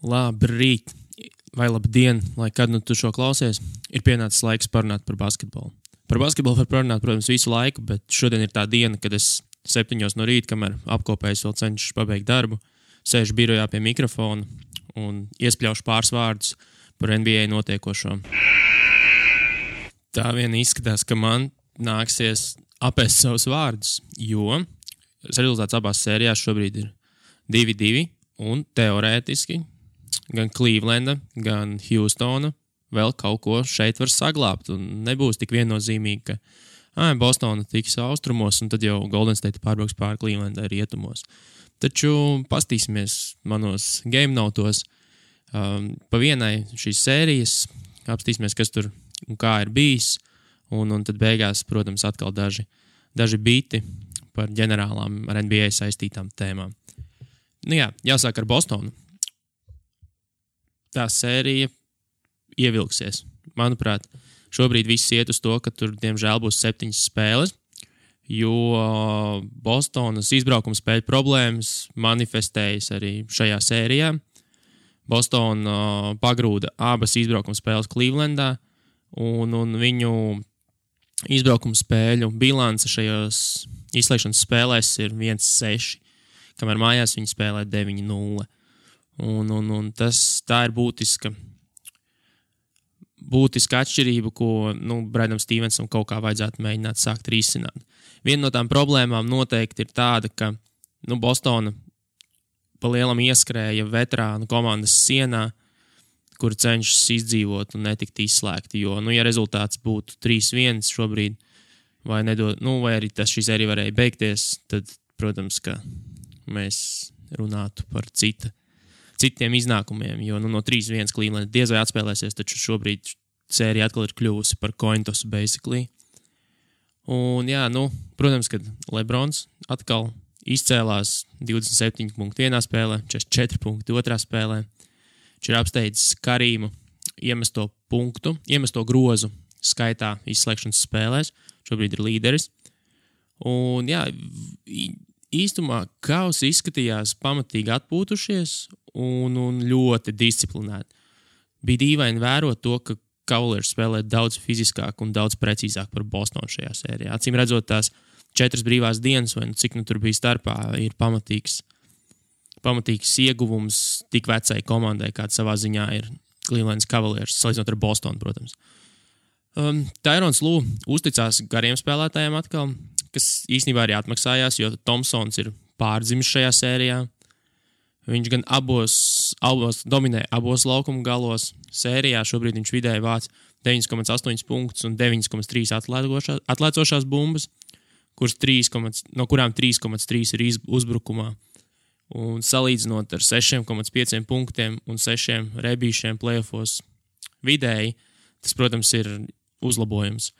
Labrīt, vai labdien, lai kad nu tu šo klausies, ir pienācis laiks parunāt par basketbolu. Par basketbolu var parunāt, protams, visu laiku, bet šodien ir tā diena, kad es 7 no rīta, kamēr apkopējis vēl cenšos pabeigt darbu, sēžu birojā pie mikrofona un iespļaušu pāris vārdus par NBA notiekošo. Tā vien izskatās, ka man nāksies apēst savus vārdus, jo rezultāts abās sērijās šobrīd ir 2-2 un teorētiski gan Clevelanda, gan Houstona vēl kaut ko šeit var saglābt un nebūs tik viennozīmīgi, ka Bostona tiks austrumos un tad jau Golden State pārbrauks pāri Clevelandai rietumos. Taču pastīsimies manos game notos pa vienai šīs sērijas, apstīsimies, kas tur un kā ir bijis, un tad beigās, protams, atkal daži biti par ģenerālām ar NBA saistītām tēmām. Nu jā, jāsāk ar Bostonu. Tā sērija ievilksies. Manuprāt, šobrīd viss iet uz to, ka tur, diemžēl, būs 7 spēles, jo Bostonas izbraukuma spēļu problēmas manifestējas arī šajā sērijā. Bostona pagrūda abas izbraukuma spēles Clevelandā, un viņu izbraukuma spēļu bilance šajos izslēgšanas spēlēs ir 1-6, kamēr mājās viņi spēlē 9-0. Un tā ir būtiska atšķirība, ko Bradam Stevensam kaut kā vajadzētu mēģināt sākt risināt. Viena no tām problēmām noteikti ir tāda, ka Bostona pa lielam ieskrēja veterānu komandas sienā, kur cenšas izdzīvot un netikt izslēgti, jo, ja rezultāts būtu 3-1 šobrīd, vai arī šī sērija varēja beigties, tad, protams, ka mēs runātu par citiem iznākumiem, jo no 3-1 Cleveland diez vai atspēlēsies, taču šobrīd sērija atkal ir kļuvusi par coin toss, basically. Un jā, protams, kad Lebrons atkal izcēlās 27 punktu vienā spēlē, 44 punktu otrā spēlē. Viņš ir apsteidzis Karīmu iemesto grozu skaitā izslēgšanas spēlēs. Šobrīd ir līderis. Un jā, īstumā Cavs izskatījās pamatīgi atpūtušies un ļoti disciplinēti. Bija dīvaini vērot to, ka Cavaliers spēlē daudz fiziskāk un daudz precīzāk par Bostonu šajā sērijā. Acīm redzot, tās 4 brīvās dienas, vai cik tur bija starpā, ir pamatīgs ieguvums tik vecai komandai, kāda savā ziņā ir Cleveland Cavaliers, salīdzinot ar Bostonu, protams. Tyrons Lue uzticās gariem spēlētājiem atkal, kas īstenībā arī atmaksājās, jo Thompsons ir pārdzimis šajā sērijā. Viņš gan dominē abos laukuma galos. Sērijā šobrīd viņš vidēji vāc 9,8 punktus un 9,3 atlēcošās bumbas, no kurām 3,3 ir uzbrukumā. Un salīdzinot ar 6,5 punktiem un 6 rebīšiem playoffos vidēji, tas, protams, ir uzlabojums.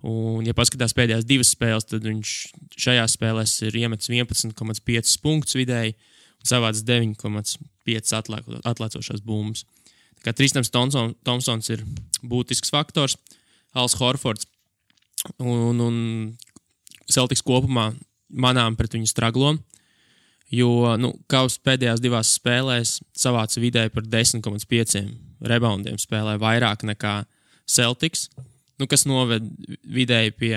Un, ja paskatās pēdējās 2 spēles, tad viņš šajās spēlēs ir iemetis 11,5 punktus vidēji un savāds 9,5 atlēcošās bumbas. Tā kā Tristans Thompsons ir būtisks faktors, Als Horfords un Celtics kopumā manām pret viņu straglo, jo Cavs pēdējās 2 spēlēs savāca vidēji par 10,5 reboundiem spēlē vairāk nekā Celtics, kas noved vidēji pie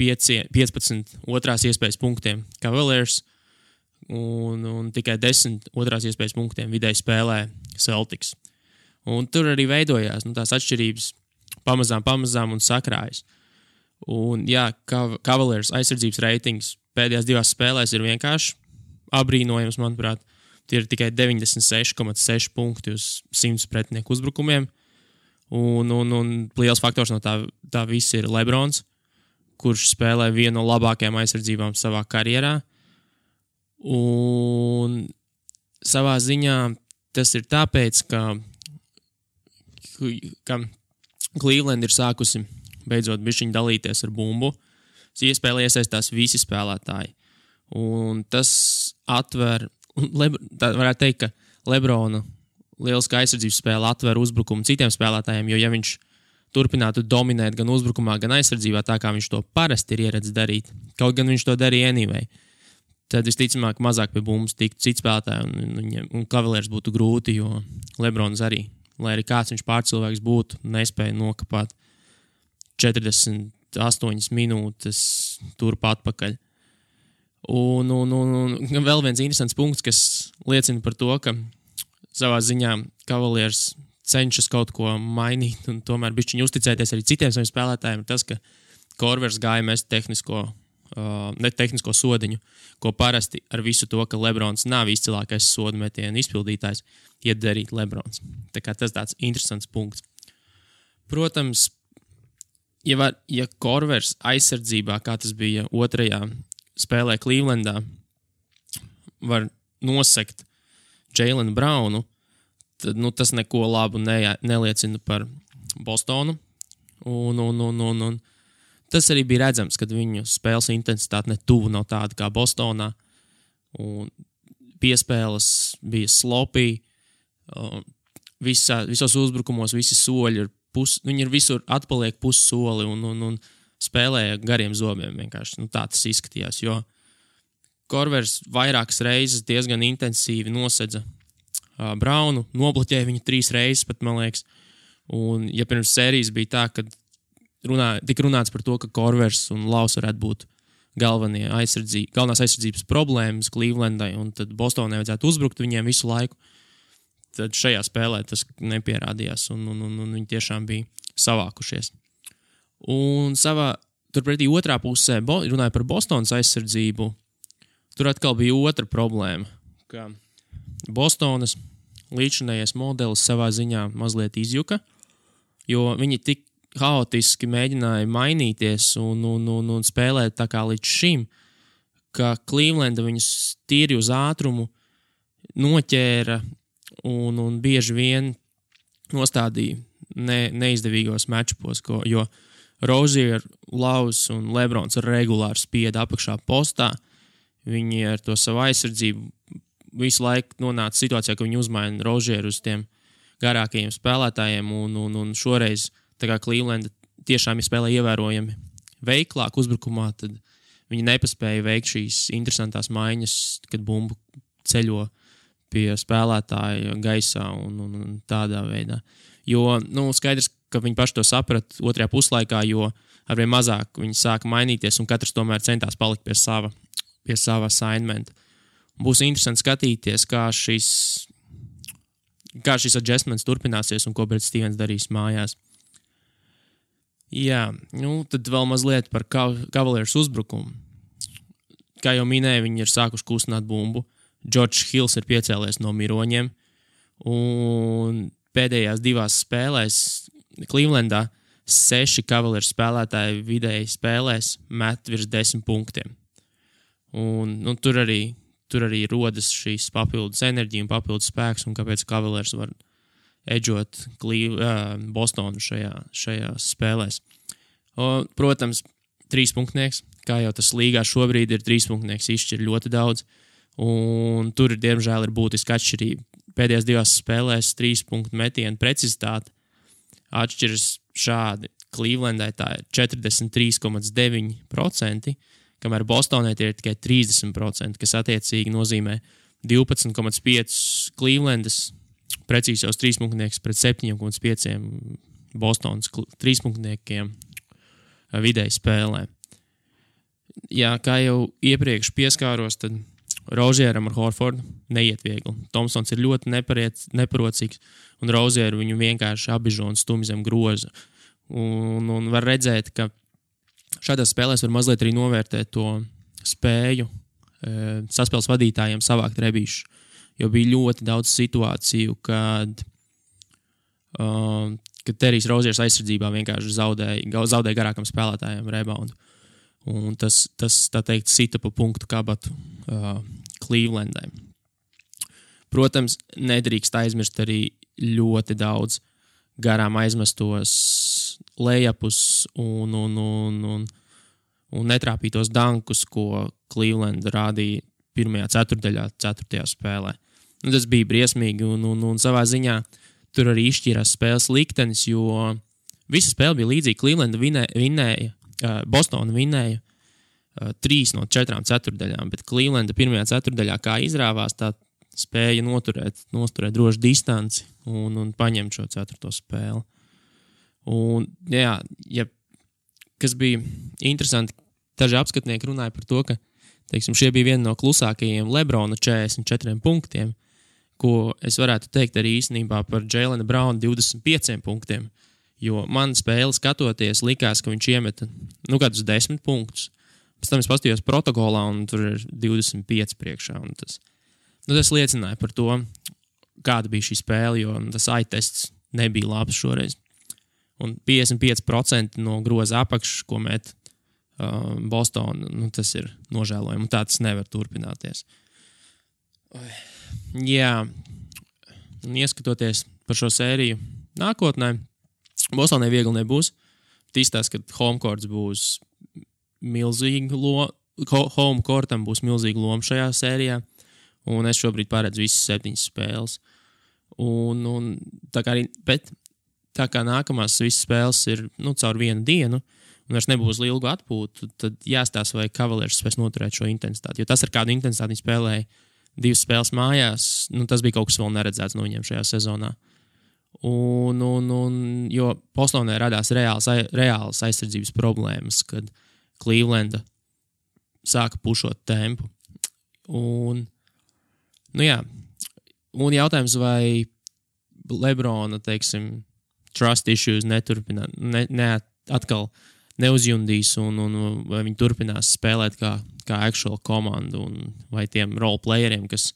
15 otrās iespējas punktiem Cavaliers un tikai 10 otrās iespējas punktiem vidēji spēlē Celtics. Un tur arī veidojās tās atšķirības pamazām un sakrājas. Un jā, Cavaliers aizsardzības reitings pēdējās 2 spēlēs ir vienkārši abrīnojams, manuprāt. Tie ir tikai 96,6 punkti uz 100 pretinieku uzbrukumiem. Un liels faktors no tā viss ir Lebrons, kurš spēlē vienu no labākajām aizsardzībām savā karjerā. Un savā ziņā tas ir tāpēc, ka Cleveland ir sākusi beidzot bišķiņ dalīties ar bumbu. Iespēlē iesaistās visi spēlētāji. Un tas varētu teikt, ka Lebrona lieliska aizsardzības spēle atver uzbrukumu citiem spēlētājiem, jo ja viņš turpinātu dominēt gan uzbrukumā, gan aizsardzībā, tā kā viņš to parasti ir ieredzis darīt, kaut gan viņš to darīja anyway, tad visticamāk mazāk pie bumbas tiktu cits spēlētāji, un Cavaliers būtu grūti, jo Lebrons arī, lai arī kāds viņš pārcilvēks būtu, nespēja nokapāt 48 minūtes turp atpakaļ. Un vēl viens interesants punkts, kas liecina par to, ka savā ziņā Cavaliers cenšas kaut ko mainīt un tomēr bišķiņ uzticēties arī citiem saviem spēlētājiem, ir tas, ka Korvers gāja mest tehnisko sodiņu, ko parasti ar visu to, ka Lebrons nav izcilākais sodu metienu izpildītājs, iet darīt Lebrons. Tā kā tas tāds interesants punkts. Protams, ja Korvers aizsardzībā, kā tas bija otrajā spēlē Clevelandā, var nosekt Jaylen Brownu, tad tas neko labu neliecina par Bostonu. Un tas arī bija redzams, kad viņu spēles intensitāte ne tuvu nav tāda kā Bostonā. Un piespēles bija sloppy. Visos uzbrukumos visi soļi viņi ir visur atpaliek pussoli un spēlēja gariem zobiem vienkārši. Tā tas izskatījās, jo Korvers vairākas reizes diezgan intensīvi nosedza Brownu, nobloķēja viņu 3 reizes pat, man liekas. Un ja pirms sērijas bija tā, kad tika runāts par to, ka Korvers un Laus varētu būt galvenās aizsardzības problēmas Clevelandai, un tad Bostonai vajadzētu uzbrukt viņiem visu laiku, tad šajā spēlē tas nepierādījās, un viņi tiešām bija savākušies. Un turpretī otrā pusē, runāja par Bostonas aizsardzību, tur atkal bija otra problēma, ka Bostonas līdzinājais modelis savā ziņā mazliet izjuka, jo viņi tik haotiski mēģināja mainīties un spēlēt tā kā līdz šim, ka Clevelanda viņus tīri uz ātrumu noķēra un bieži vien nostādīja neizdevīgos matchupos, jo Rozier, Laus un Lebrons regulāri spieda apakšā postā. Viņi ar to savu aizsardzību visu laiku nonāca situācijā, ka viņi uzmaina Rozieru uz tiem garākajiem spēlētājiem, un šoreiz, tā kā Clevelanda tiešām spēlē ievērojami veiklāk uzbrukumā, tad viņi nepaspēja veikt šīs interesantās maiņas, kad bumbu ceļo pie spēlētāja gaisā un tādā veidā. Jo, skaidrs, ka viņi paši to saprat otrajā puslaikā, jo arvien mazāk viņi sāka mainīties un katrs tomēr centās palikt pie sava assignmenta. Būs interesanti skatīties, kā šis adjustments turpināsies un ko Brad Stevens darīs mājās. Jā, tad vēl mazliet par Cavaliers uzbrukumu. Kā jau minēju, viņi ir sākuši kustināt bumbu. George Hills ir piecēlies no miroņiem. Un pēdējās 2 spēlēs Clevelandā 6 Cavaliers spēlētāji vidēji spēlēs met virs 10 punktiem. Un tur arī rodas šīs papildus enerģija un papildus spēks, un kāpēc Cavaliers var edžot Bostonu šajās spēlēs. Protams, 3-punktnieks, kā jau tas līgā šobrīd ir, 3-punktnieks izšķir ļoti daudz, un tur diemžēl ir būtiska atšķirība. Pēdējās 2 spēlēs 3-punktu metienu precizitāte atšķiras šādi. Clevelandai tā ir 43,9%, kamēr Bostonai tie ir tikai 30%, kas attiecīgi nozīmē 12,5 Clevelandas precīzos 3-punktnieks pret 7,5 Bostonas 3-punktniekiem vidēji spēlē. Jā, kā jau iepriekš pieskāros, tad Rozieram ar Horfordu neiet viegli. Thompsons ir ļoti neparocīgs, un Rozieru viņu vienkārši abižo un stumj zem groza. Un var redzēt, ka šādās spēlēs var mazliet arī novērtēt to spēju saspēles vadītājiem savākt rebīšu, jo bija ļoti daudz situāciju, kad Terijs Roziers aizsardzībā vienkārši zaudēja garākam spēlētājiem reboundu. Un tas tā teikt, sita pa punktu kabatu Clevelandai. Protams, nedrīkst aizmirst arī ļoti daudz garām aizmestos layupus un netrāpītos dankus, ko Cleveland rādīja pirmajā ceturtdaļā, 4. spēlē. Tas bija briesmīgi, un savā ziņā tur arī izšķīrās spēles liktenis, jo visa spēle bija līdzīga. Cleveland vinēja, Bostona vinēja 3 no 4 ceturdaļām, bet Clevelanda pirmajā ceturdaļā kā izrāvās, tā spēja noturēt drošu distanci un paņemt šo 4. spēli. Un, jā, kas bija interesanti, daži apskatnieki runāja par to, ka, teiksim, šie bija viena no klusākajiem LeBrona 44 punktiem, ko es varētu teikt arī īstenībā par Jaylena Browna 25 punktiem, jo man spēli skatoties likās, ka viņš iemeta, kādus 10 punktus. Pēc tam es paskatījos protokolā un tur ir 25 priekšā. Un tas liecināja par to, kāda bija šī spēle, jo tas eye-tests nebija labs šoreiz. Un 55% no groza apakšas, ko met Boston, tas ir nožēlojami, un tā tas nevar turpināties. Jā, un ieskatoties par šo sēriju nākotnē, Bostonai viegli nebūs. Tīstās, ka homecourts būs milzīga home courtam būs milzīga loma šajā sērijā, un es šobrīd paredzu visas 7 spēles. Un tā kā nākamās visas spēles ir caur vienu dienu, un vairs nebūs ilgu atpūtu, tad jāstāsta, vai Cavaliers spēs noturēt šo intensitāti. Jo tas, ar kādu intensitāti viņi spēlēja 2 spēles mājās, tas bija kaut kas vēl neredzēts no viņiem šajā sezonā. Jo Bostonē radās reālas aizsardzības problēmas, kad Clevelanda sāka pušot tempu. Un jautājums, vai LeBrona, teiksim, trust issues atkal neuzjundīs un vai viņi turpinās spēlēt kā actual komandu, un vai tiem role playeriem, kas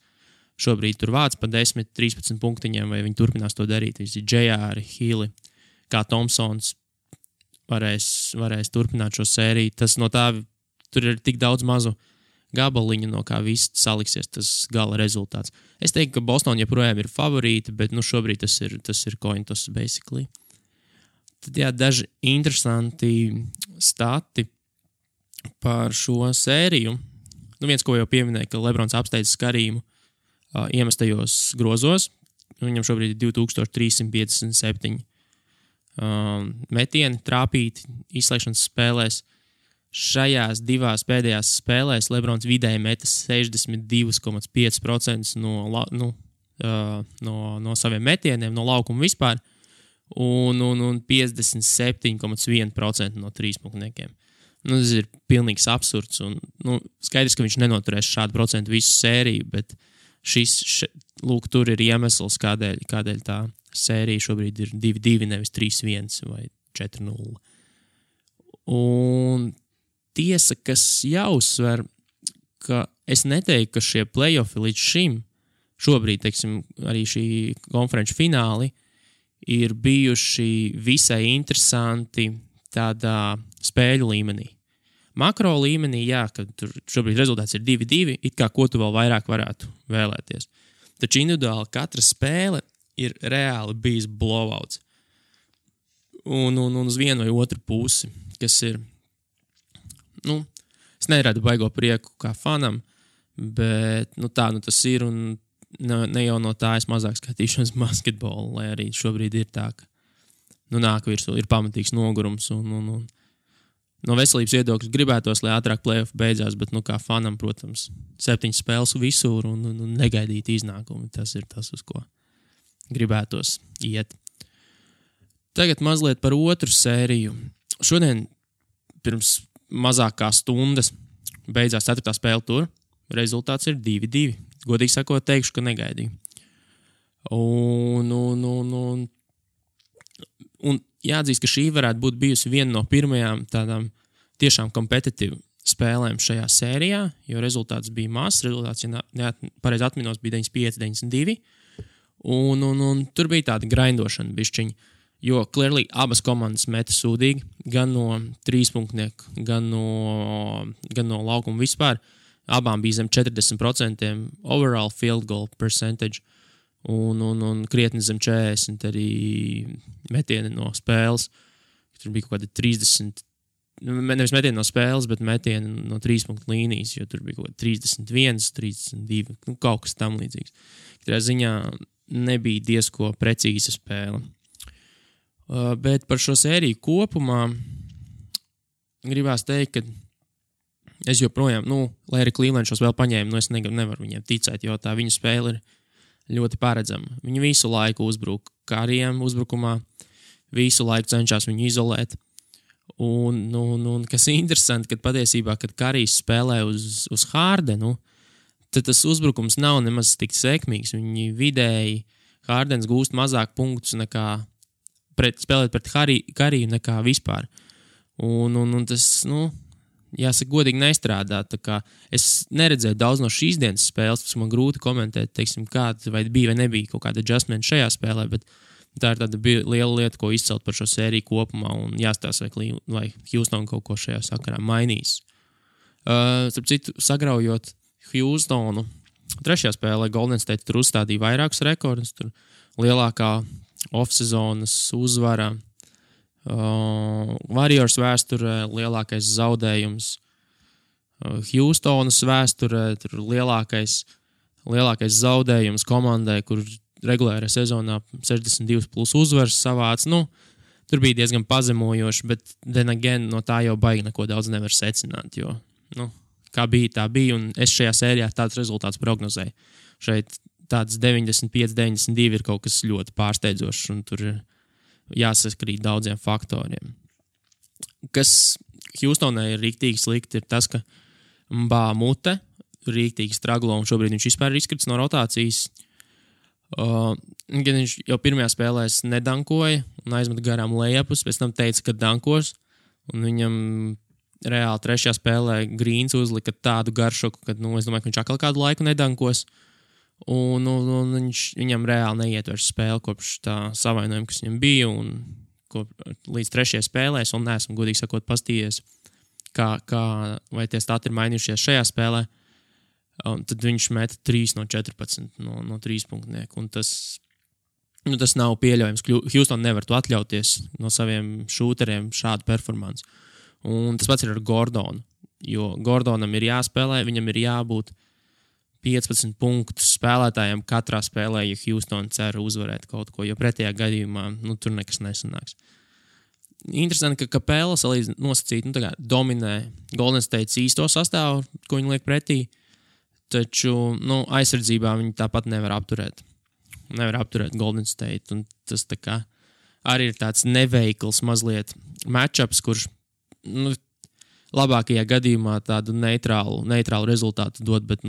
šobrīd tur vāc pa 10-13 punktiņiem, vai viņi turpinās to darīt. Visi J.R., Healy, kā Thompsons varēs turpināt šo sēriju. Tas no tā, tur ir tik daudz mazu gabaliņu, no kā viss saliksies tas gala rezultāts. Es teiktu, ka Boston joprojām ir favorīti, bet viens ir coin toss basically. Tad daži interesanti stati par šo sēriju. Viens, ko jau pieminēja, ka LeBrons apsteidz Karīmu iemestajos grozos. Viņam šobrīd ir 2357 metieni trāpīti izslēgšanas spēlēs. Šajās 2 pēdējās spēlēs LeBrons vidēji meta 62,5% no saviem metieniem, no laukuma vispār, un 57,1% no trīspunktniekiem. Tas ir pilnīgs absurds, un skaidrs, ka viņš nenoturēs šādu procentu visu sēriju, bet tur ir iemesls, kādēļ tā sērija šobrīd ir 2-2, nevis 3-1 vai 4-0. Un tiesa, kas jāuzsver, ka es neteiktu, ka šie play-offi līdz šim, šobrīd, teiksim, arī šī konferenču fināli, ir bijuši visai interesanti tādā spēļu līmenī. Makro līmenī, kad tur šobrīd rezultāts ir 2-2, it kā ko tu vēl vairāk varētu vēlēties. Taču individuāli katra spēle ir reāli bijis blowouts. Un uz vienu vai otru pusi, kas ir, es neradu baigo prieku kā fanam, bet tā tas ir, un ne jau no tā es mazāk skatīšos basketbolu, lai arī šobrīd ir tā, ka nāk virsū, ir pamatīgs nogurums, un no veselības viedokļa gribētos, lai ātrāk play-off beidzās, bet kā fanam, protams, 7 spēles visur un negaidīt iznākumu. Tas ir tas, uz ko gribētos iet. Tagad mazliet par otru sēriju. Šodien pirms mazāk kā stundas beidzās 4. spēle tur. Rezultāts ir 2-2. Godīgi sakot, teikšu, ka negaidīju. Un jāatzīst, ka šī varētu būt bijusi viena no pirmajām tādām tiešām kompetitīvu spēlēm šajā sērijā, jo rezultāts bija mazs. Rezultāts, ja pareizi atminos, bija 95-92. Un tur bija tāda grindošana bišķiņa, jo clearly abas komandas meta sūdīgi, gan no trīspunktnieku, gan no laukuma vispār. Abām bija zem 40% overall field goal percentage. Un krietni zem 40 arī metieni no spēles. Tur bija kaut kādi 30, nevis metieni no spēles, bet metieni no 3-punktu līnijas, jo tur bija kaut kādi 31, 32, kaut kas tam līdzīgs. Katrā ziņā nebija diezko precīza spēle. Bet par šo sēriju kopumā gribās teikt, ka es joprojām, lai arī Cleveland šos vēl paņēma, es nevaru viņiem ticēt, jo tā viņu spēle ir ļoti paredzama. Viņi visu laiku uzbruk Karijam uzbrukumā, visu laiku cenšas viņu izolēt. Un kas ir interesanti, kad patiesībā, kad Karijs spēlē uz Hardenu, tad tas uzbrukums nav nemaz tik sekmīgs. Viņi vidēji Hardens gūst mazāk punktus nekā spēlēt pret Kariju nekā vispār. Un tas, jāsaka, godīgi nestrādā. Tā kā es neredzēju daudz no šīs dienas spēles, tas man grūti komentēt, teiksim, kāda vai bija vai nebija kaut kāda adjustment šajā spēlē, bet tā ir tāda liela lieta, ko izcelt par šo sēriju kopumā un jāstāsta, vai Houston kaut ko šajā sakarā mainīs. Starp citu, sagraujot Houstonu, trešajā spēlē Golden State tur uzstādīja vairākus rekordus, tur lielākā off-sezonas uzvara, Warriors vēsturē lielākais zaudējums, Houstonas vēsturē tur lielākais zaudējums komandai, kur regulārā sezonā 62 plus uzvaras savāc. Tur bija diezgan pazemojoši, bet then again, no tā jau baigi neko daudz nevar secināt, jo, kā bija, tā bija, un es šajā sērijā tāds rezultāts prognozēju. Šeit tāds 95-92 ir kaut kas ļoti pārsteidzošs, un tur ir jāsaskrīt daudziem faktoriem. Kas Houstonai ir rīktīgi slikti, ir tas, ka Mbā Mute rīktīgi straglo, un šobrīd viņš vispār ir izkrits no rotācijas. Gan viņš jau pirmajā spēlē nedankoja un aizmet garām lejapus, pēc tam teica, ka dankos, un viņam reāli trešajā spēlē Grīns uzlika tādu garšoku, ka, es domāju, ka viņš atkal kādu laiku nedankos. Un viņam reāli neietverš spēli kopš tā savainojuma, kas viņam bija, un līdz trešajai spēlēs, un neesmu godīgi sakot pastījies, vai tie stati ir mainījušies šajā spēlē, un tad viņš meta 3 no 14 no 3 punktnieku, un tas nav pieļaujams. Houston nevar to atļauties no saviem šūteriem šādu performansu. Un tas pats ir ar Gordonu, jo Gordonam ir jāspēlē, viņam ir jābūt 15 punktus spēlētājiem katrā spēlē, ja Houston cer uzvarēt kaut ko, jo pretējā gadījumā tur nekas nesanāks. Interesanti, ka Capela nosacīt, dominē Golden State īsto sastāvu, ko viņi liek pretī, taču aizsardzībā viņi tāpat nevar apturēt. Nevar apturēt Golden State, un tas tā kā arī ir tāds neveikls mazliet matchups, kurš labākajā gadījumā tādu neitrālu rezultātu dod, bet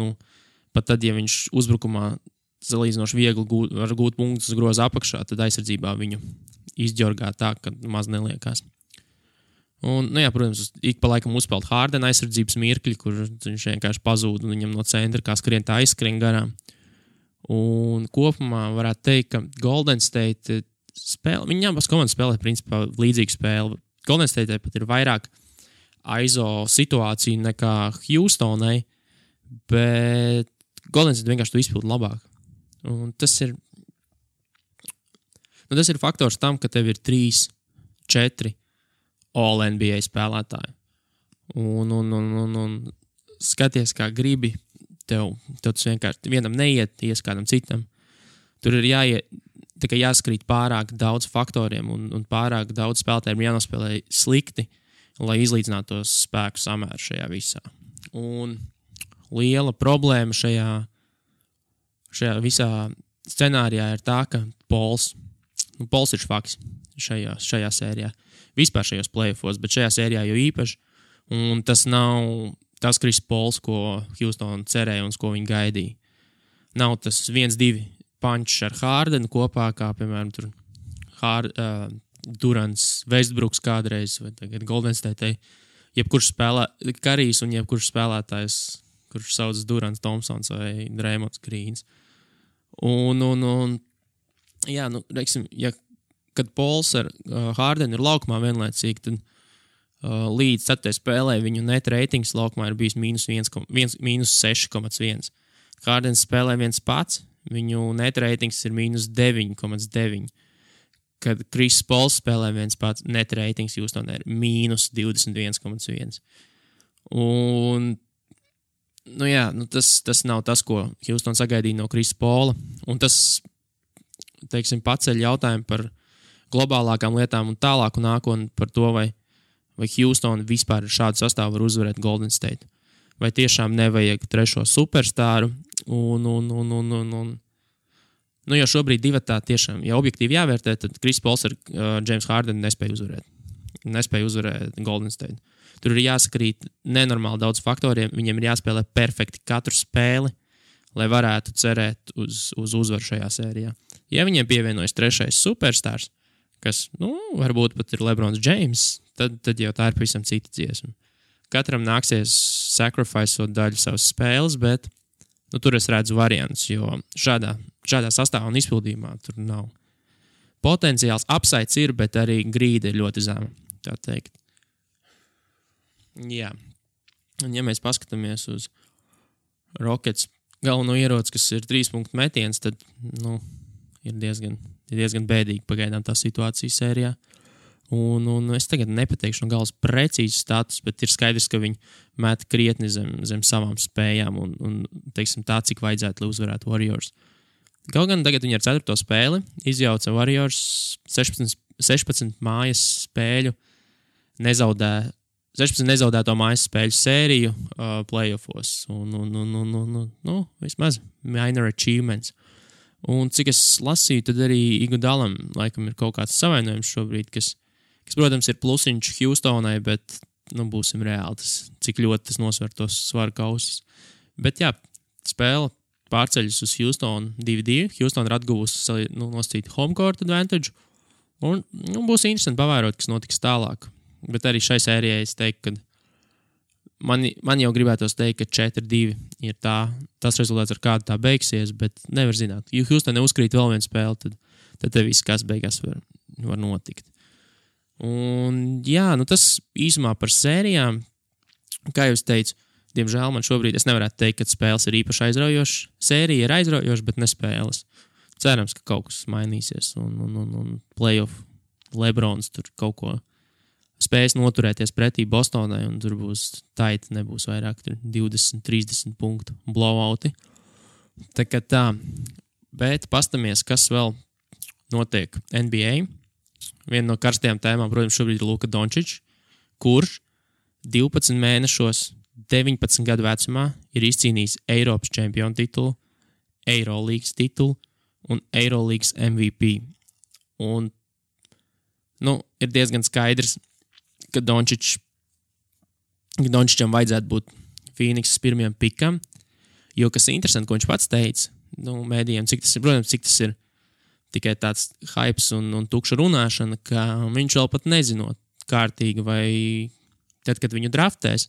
pat tad, ja viņš uzbrukumā salīdzinoši viegli var gūt punktus uz groza apakšā, tad aizsardzībā viņu izģorgā tā, ka maz neliekās. Un, protams, ik pa laikam uzspēlēt Hardena aizsardzības mirkļi, kur viņš vienkārši pazūd un viņam no centra kā skrien tā aizskrien garām. Un kopumā varētu teikt, ka Golden State spēle, viņi abas komandas spēlē principā līdzīgu spēli. Golden State pat ir vairāk aizo situāciju nekā Houstonai, bet Golden State vienkārši to izpildu labāk. Un tas ir faktors tam, ka tev ir 3-4 All-NBA spēlētāji. Un skaties, kā gribi, tev tas vienkārši vienam neiet, ies kādam citam. Tur ir jāskrīt pārāk daudz faktoriem un pārāk daudz spēlētājiem jānospēlē slikti, lai izlīdzinātu tos spēku samēru šajā visā. Un liela problēma šajā visā scenārijā ir tā, ka Pols ir švaks šajā sērijā. Vispār šajos playoffos, bet šajā sērijā jau īpaši. Un tas nav tas Chris Pols, ko Houston cerēja un ko viņi gaidīja. Nav tas 1-2 punch ar Hardenu kopā, kā, piemēram, tur Durants, Westbrooks kādreiz, vai tagad Golden State. Jebkurš Karijs un jebkurš spēlētājs, kurš sauc Durants Thompsons vai Draymonds Greens. Reiksim, kad Pols ar Hardenu ir laukumā vienlaicīgi, tad līdz 4. spēlē viņu net ratings laukumā ir bijis -6,1. Hardens spēlē viens pats, viņu net ratings ir -9,9. Kad Chris Pols spēlē viens pats, net ratings Houstonā ir -21,1. Un tas nav tas, ko Houston sagaidīja no Chris Paula. Un tas, teiksim, paceļ jautājumu par globālākām lietām un tālāku nākotni par to, vai Houston vispār ar šādu sastāvu var uzvarēt Golden State. vai tiešām nevajag trešo superstāru. Un jo šobrīd divatā tiešām, ja objektīvi jāvērtē, tad Chris Pauls ar James Harden nespēja uzvarēt Golden State. Tur ir jāsakrīt nenormāli daudz faktoriem, viņiem ir jāspēlē perfekti katru spēli, lai varētu cerēt uz uzvaru šajā sērijā. Ja viņiem pievienojas trešais superstārs, kas, varbūt pat ir LeBrons James, tad jau tā ir pavisam cita dziesma. Katram nāksies sacrificeot daļu savas spēles, bet tur es redzu variantus, jo šādā sastāvā un izpildījumā tur nav. Potenciāls upsides ir, bet arī grīda ir ļoti zema, tā teikt. Jā. Un ja mēs paskatāmies uz Rockets galveno ieroci, kas ir 3-punktu metiens, tad, ir diezgan bēdīgi pagaidām tā situācija sērijā. Un es tagad nepateikšu no galas precīzi status, bet ir skaidrs, ka viņi met krietni zem savām spējām un teiksim tā, cik vajadzētu, lai uzvarētu Warriors. Kaut gan tagad viņi ar 4. spēli izjauca Warriors 16 mājas spēļu, 16 nezaudēto mājas spēļu sēriju playoffos. Vismaz minor achievements. Un cik es lasīju, tad arī Iguodalam laikam ir kaut kāds savainojums šobrīd, kas, protams, ir plusiņš Houstonai, bet, būsim reāli, cik ļoti tas nosver tos svaru kausus. Bet jā, spēle pārceļas uz Houston 2-2. Houston ir atguvusi nosacīt home court advantage. Un būs interesanti pavērot, kas notiks tālāk. Bet arī šai sērijai es teiktu, ka man jau gribētos teikt, ka 4-2 ir tas rezultāts, ar kādu tā beigsies, bet nevar zināt. Ja Houston neuzkrīt vēl vienu spēli, tad te viss, kas beigās var notikt. Un jā, tas īsumā par sērijām, kā jau es teicu, diemžēl man šobrīd es nevarētu teikt, ka spēles ir īpaši aizraujošas. Sērija ir aizraujoša, bet ne spēles. Cerams, ka kaut kas mainīsies un playoff LeBrons tur kaut ko spējas noturēties pretī Bostonai un tur būs tight, nebūs vairāk 20-30 punktu blowouti. Tā kā tā. Bet pastamies, kas vēl notiek NBA. Viena no karstajām tēmām, protams, šobrīd ir Luka Dončičs, kurš 12 mēnešos 19 gadu vecumā ir izcīnījis Eiropas čempionu titulu, Eirolīgas titulu un Eirolīgas MVP. Un, ir diezgan skaidrs, ka Dončičam vajadzētu būt Phoenixas pirmajam pikam, jo, kas ir interesanti, ko viņš pats teica, mēdījiem, cik tas ir tikai tāds hypes un tukša runāšana, ka viņš vēl pat nezinot kārtīgi, vai tad, kad viņu draftēs,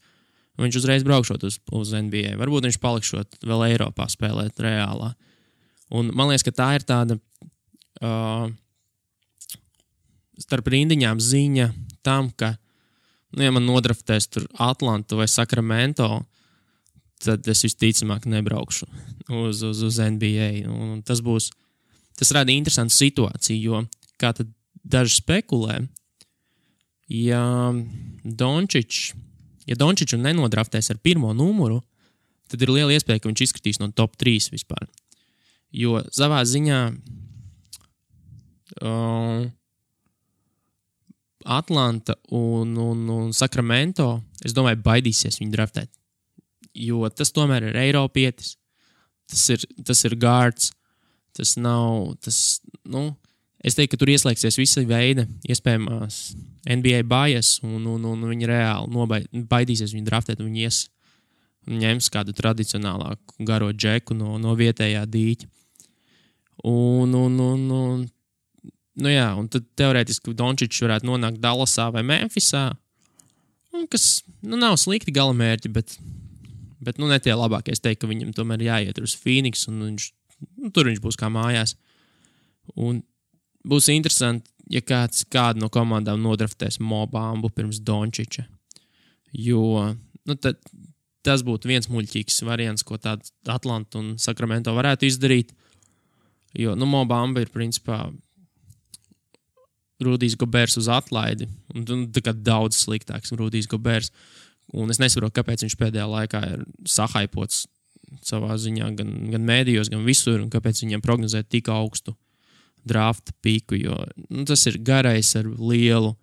viņš uzreiz braukšot uz NBA. Varbūt viņš palikšot vēl Eiropā spēlēt reālā. Un man liekas, ka tā ir tāda starp rindiņām ziņa tam, ka, ja man nodraftēs tur Atlantu vai Sacramento, tad es visticamāk nebraukšu uz NBA. Un tas rada interesantu situāciju, jo, kā tad daži spekulē, ja Dončiču nenodraftēs ar pirmo numuru, tad ir liela iespēja, ka viņš izskatīs no top 3 vispār. Jo savā ziņā Atlanta un Sacramento, es domāju, baidīsies viņu draftēt. Jo tas tomēr ir Eiropietis, tas ir guards, tas nav, es teiktu, ka tur ieslēgsies visa veida iespējamās NBA bias un viņi reāli baidīsies viņu draftēt un viņi ņems kādu tradicionālāku garo džeku no vietējā dīķa. Un tad teorētiski Dončičs varētu nonākt Dallasā vai Memphisā, kas, nav slikti galamērķi, bet ne tie labākie. Es teiktu, ka viņam tomēr jāiet uz Phoenix un tur viņš būs kā mājās. Un būs interesanti, ja kādu no komandām nodraftēs Mo Bambu pirms Dončiča. Jo, tad tas būtu viens muļķīgs variants, ko tādu Atlanta un Sacramento varētu izdarīt. Jo, Mo Bamba ir principā Rudijs Gobers uz atlaidi. Un tā kā daudz sliktāks Rudijs Gobers. Un es nesaprotu, kāpēc viņš pēdējā laikā ir sahaipots savā ziņā gan mēdījos, gan visur, un kāpēc viņam prognozē tik augstu drafta piku, jo tas ir garais ar lielu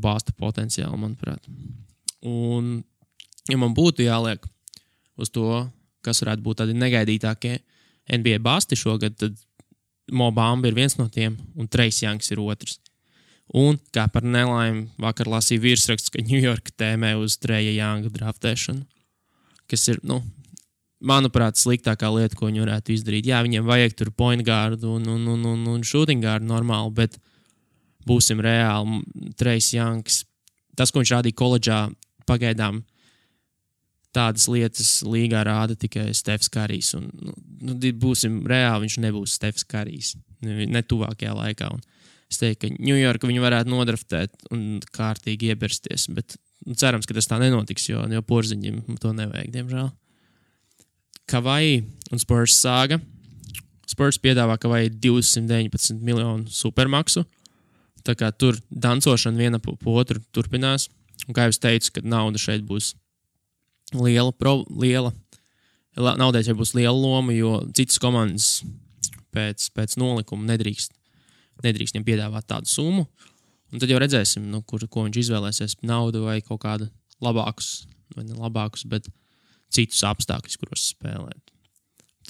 bāsta potenciālu, manuprāt. Un ja man būtu jāliek uz to, kas varētu būt tādi negaidītākie NBA basti šogad, tad Mo Bamba ir viens no tiem, un Trace Youngs ir otrs. Un, kā par nelaimi, vakar lasīju virsraksts, ka New York tēmē uz Traja Younga draftēšanu, kas ir, manuprāt, sliktākā lieta, ko viņi varētu izdarīt. Jā, viņiem vajag tur point guard un shooting guard normāli, bet būsim reāli, Trace Youngs, tas, ko viņš rādīja koledžā, pagaidām tādas lietas līgā rāda tikai Stefs Karijs. Un, būsim reāli, viņš nebūs Stefs Karijs. Ne tuvākajā laikā. Un es teiktu, ka New York viņu varētu nodraftēt un kārtīgi iebersties. Bet cerams, ka tas tā nenotiks, jo Porziņam to nevajag, diemžēl. Kavai un Spurs sāga. Spurs piedāvā Kavai 219 miljonu supermaksu. Tā kā tur dancošana viena po otru turpinās. Un kā jau es teicu, ka nauda šeit būs naudai šeit būs liela loma, jo citas komandas pēc nolikuma nedrīkst viņam piedāvāt tādu summu. Un tad jau redzēsim, ko viņš izvēlēsies, naudu vai kaut kādu labākus, vai ne labākus, bet citus apstākļus, kuros spēlēt.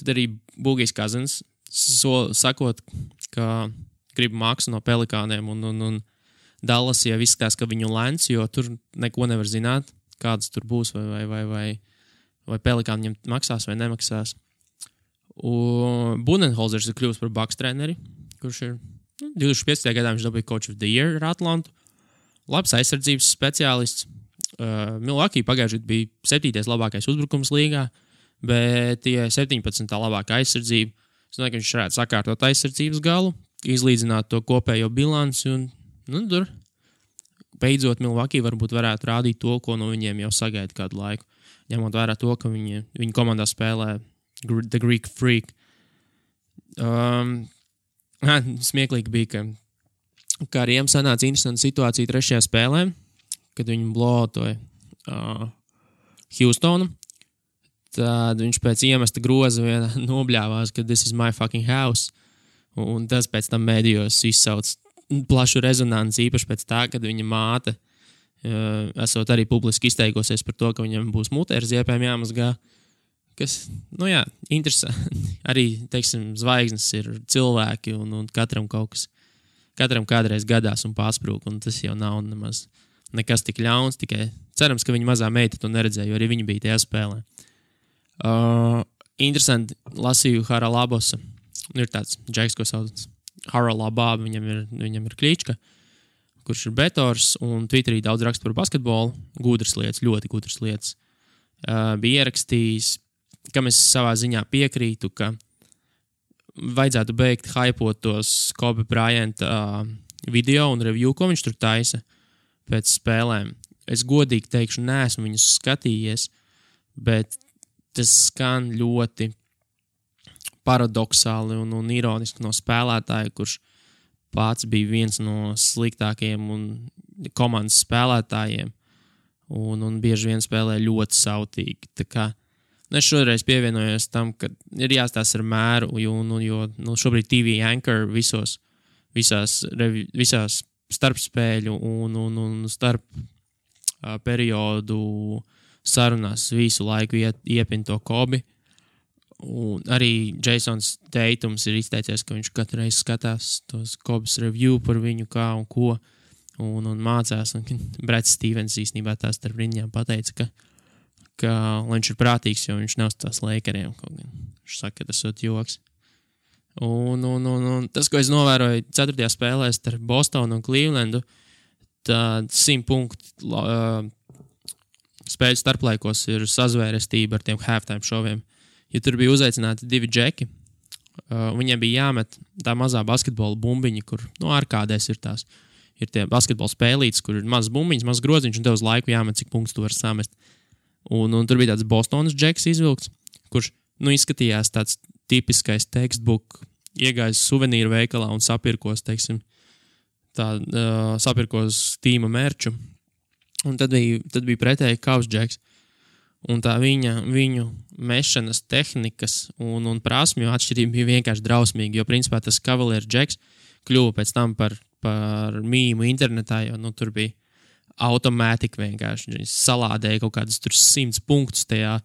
Tad arī Boogies Cousins sakot, ka grib maksu no Pelikāniem un Dallas jau izskatās, ka viņu lēns, jo tur neko nevar zināt, kādas tur būs, vai Pelikāni viņam maksās vai nemaksās. Budenholzers ir kļuvis par Bucks treneri, kurš ir 2015. gadā viņš dabūja Coach of the Year ar Atlantu. Labs aizsardzības speciālists. Milwaukee pagājušajā gadā bija 7. labākais uzbrukums līgā, bet tie 17. labākā aizsardzība. Es domāju, ka viņš varētu sakārtot aizsardzības galu, izlīdzināt to kopējo bilanci un tur beidzot Milwaukee varbūt varētu rādīt to, ko no viņiem jau sagaida kādu laiku. Ņemot vērā to, ka viņi komandā spēlē The Greek Freak. Smieklīgi bija, ka ar Riem sanāca interesanta situācija 3. spēlē, kad viņi blotoja Houstonu. Tad viņš pēc iemesta groza vienā nobļāvās, ka this is my fucking house. Un tas pēc tam mēdījos izsauc plašu rezonanci, īpaši pēc tā, kad viņa māte esot arī publiski izteikosies par to, ka viņam būs mutē ar ziepēm jāmazgā, kas, interesanti. Arī, teiksim, zvaigznes ir cilvēki un katram kaut kas, katram kādreiz gadās un pārsprūk, un tas jau nav nemaz nekas tik ļauns, tikai cerams, ka viņa mazā meita to neredzēja, jo arī viņa bija tajā spēlē. Interesanti, lasīju Haralabosa, ir tāds džeks, ko sauc Haralabā, viņam ir klīčka, kurš ir betors, un Twitterī daudz raksta par basketbolu, gudras lietas, ļoti gudras lietas. Bija ierakstījis, kam es savā ziņā piekrītu, ka vajadzētu beigt hypot tos Kobe Bryant video un review, ko viņš tur taisa pēc spēlēm. Es godīgi teikšu, neesmu viņus skatījies, bet tas skan ļoti paradoxāli un ironiski no spēlētāja, kurš pats bija viens no sliktākajiem un komandas spēlētājiem un bieži vien spēlē ļoti sautīgi. Tā kā es šoreiz pievienojos tam, ka ir jāstās ar mēru, jo šobrīd TV Anchor visās starpspēļu un starp periodu sarunās visu laiku iepin to Kobi. Un arī Jasons Tatums ir izteicies, ka viņš katru reizi skatās tos Kobas review par viņu kā un ko un mācās. Un Brats Stevens īstenībā tās starp riņām pateica, ka viņš ir prātīgs, jo viņš nav tās Lakeriem. Viņš saka, ka tas ir joks. Un tas, ko es novēroju 4. spēlē starp Bostonu un Clevelandu, tad 100 punktu spēļu starplaikos ir sazvērestība ar tiem halftime šoviem. Ja tur bija uzaicināti 2 džeki, viņiem bija jāmet tā mazā basketbola bumbiņa, kur ārkādēs ir tās. Ir tie basketbola spēlītes, kur ir mazas bumbiņas, mazas groziņš, un tev uz laiku jāmet, cik punktus tu vari samest. Un tur bija tāds Bostonas džeks izvilkts, kurš izskatījās tāds tipiskais textbook, iegājis suvenīru veikalā un sapirkos, teiksim, sapirkos tīma merču. Un tad bija pretēji Kaus džeks. Un tā viņu mešanas tehnikas un prasmju atšķirība bija vienkārši drausmīga, jo principā tas Cavalier džeks kļuva pēc tam par mīmu internetā, jo tur bija automātika vienkārši. Viņi salādēja kaut kādus tur 100 punktus tajā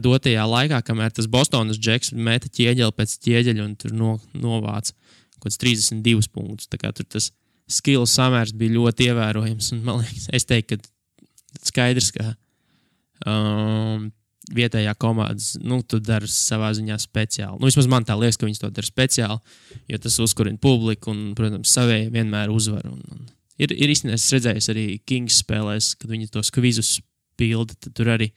dotajā laikā, kamēr tas Bostonas džeks meta ķieģeli pēc ķieģeļa un tur novāca kaut kāds 32 punktus. Tā kā tur tas skill samērs bija ļoti ievērojams. Un, man liekas, es teiktu, ka skaidrs, ka vietējā komandas, tu dari savā ziņā speciāli. Vismaz man tā liekas, ka viņi to dara speciāli, jo tas uzkurina publiku un, protams, savējie vienmēr uzvar. Ir īstenībā, es redzēju arī Kings spēlēs, kad viņi tos kvizus pilda, tad tur arī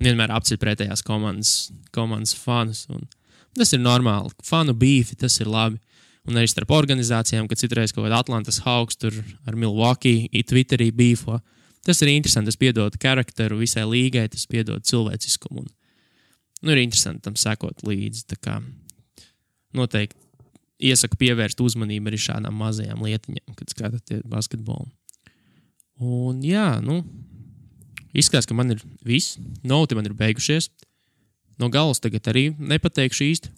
vienmēr apceļ pretējās komandas fanus. Un tas ir normāli. Fanu beefi, tas ir labi. Un arī starp organizācijām, kad citreiz kaut kāda Atlantas Hawks tur ar Milwaukee Twitterī beefo. Tas ir interesanti, tas piedod karakteru visai līgai, tas piedod cilvēciskumu. Ir interesanti tam sekot līdzi. Tā kā noteikti iesaku pievērst uzmanību arī šādām mazajām lietiņām, kad skatāties basketbolu. Un jā, izskatās, ka man ir viss. Noti man ir beigušies. No galas tagad arī nepateikšu īsti,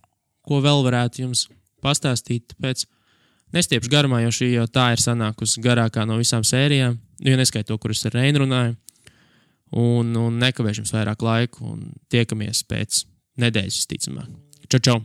ko vēl varētu jums pastāstīt, tāpēc nestiepšu garumā, jo šī jau tā ir sanākusi garākā no visām sērijām, jo neskait to, kur es ar Reinu runāju, un nekavēšu jums vairāk laiku, un tiekamies pēc nedēļas, visticamāk. Čau, čau!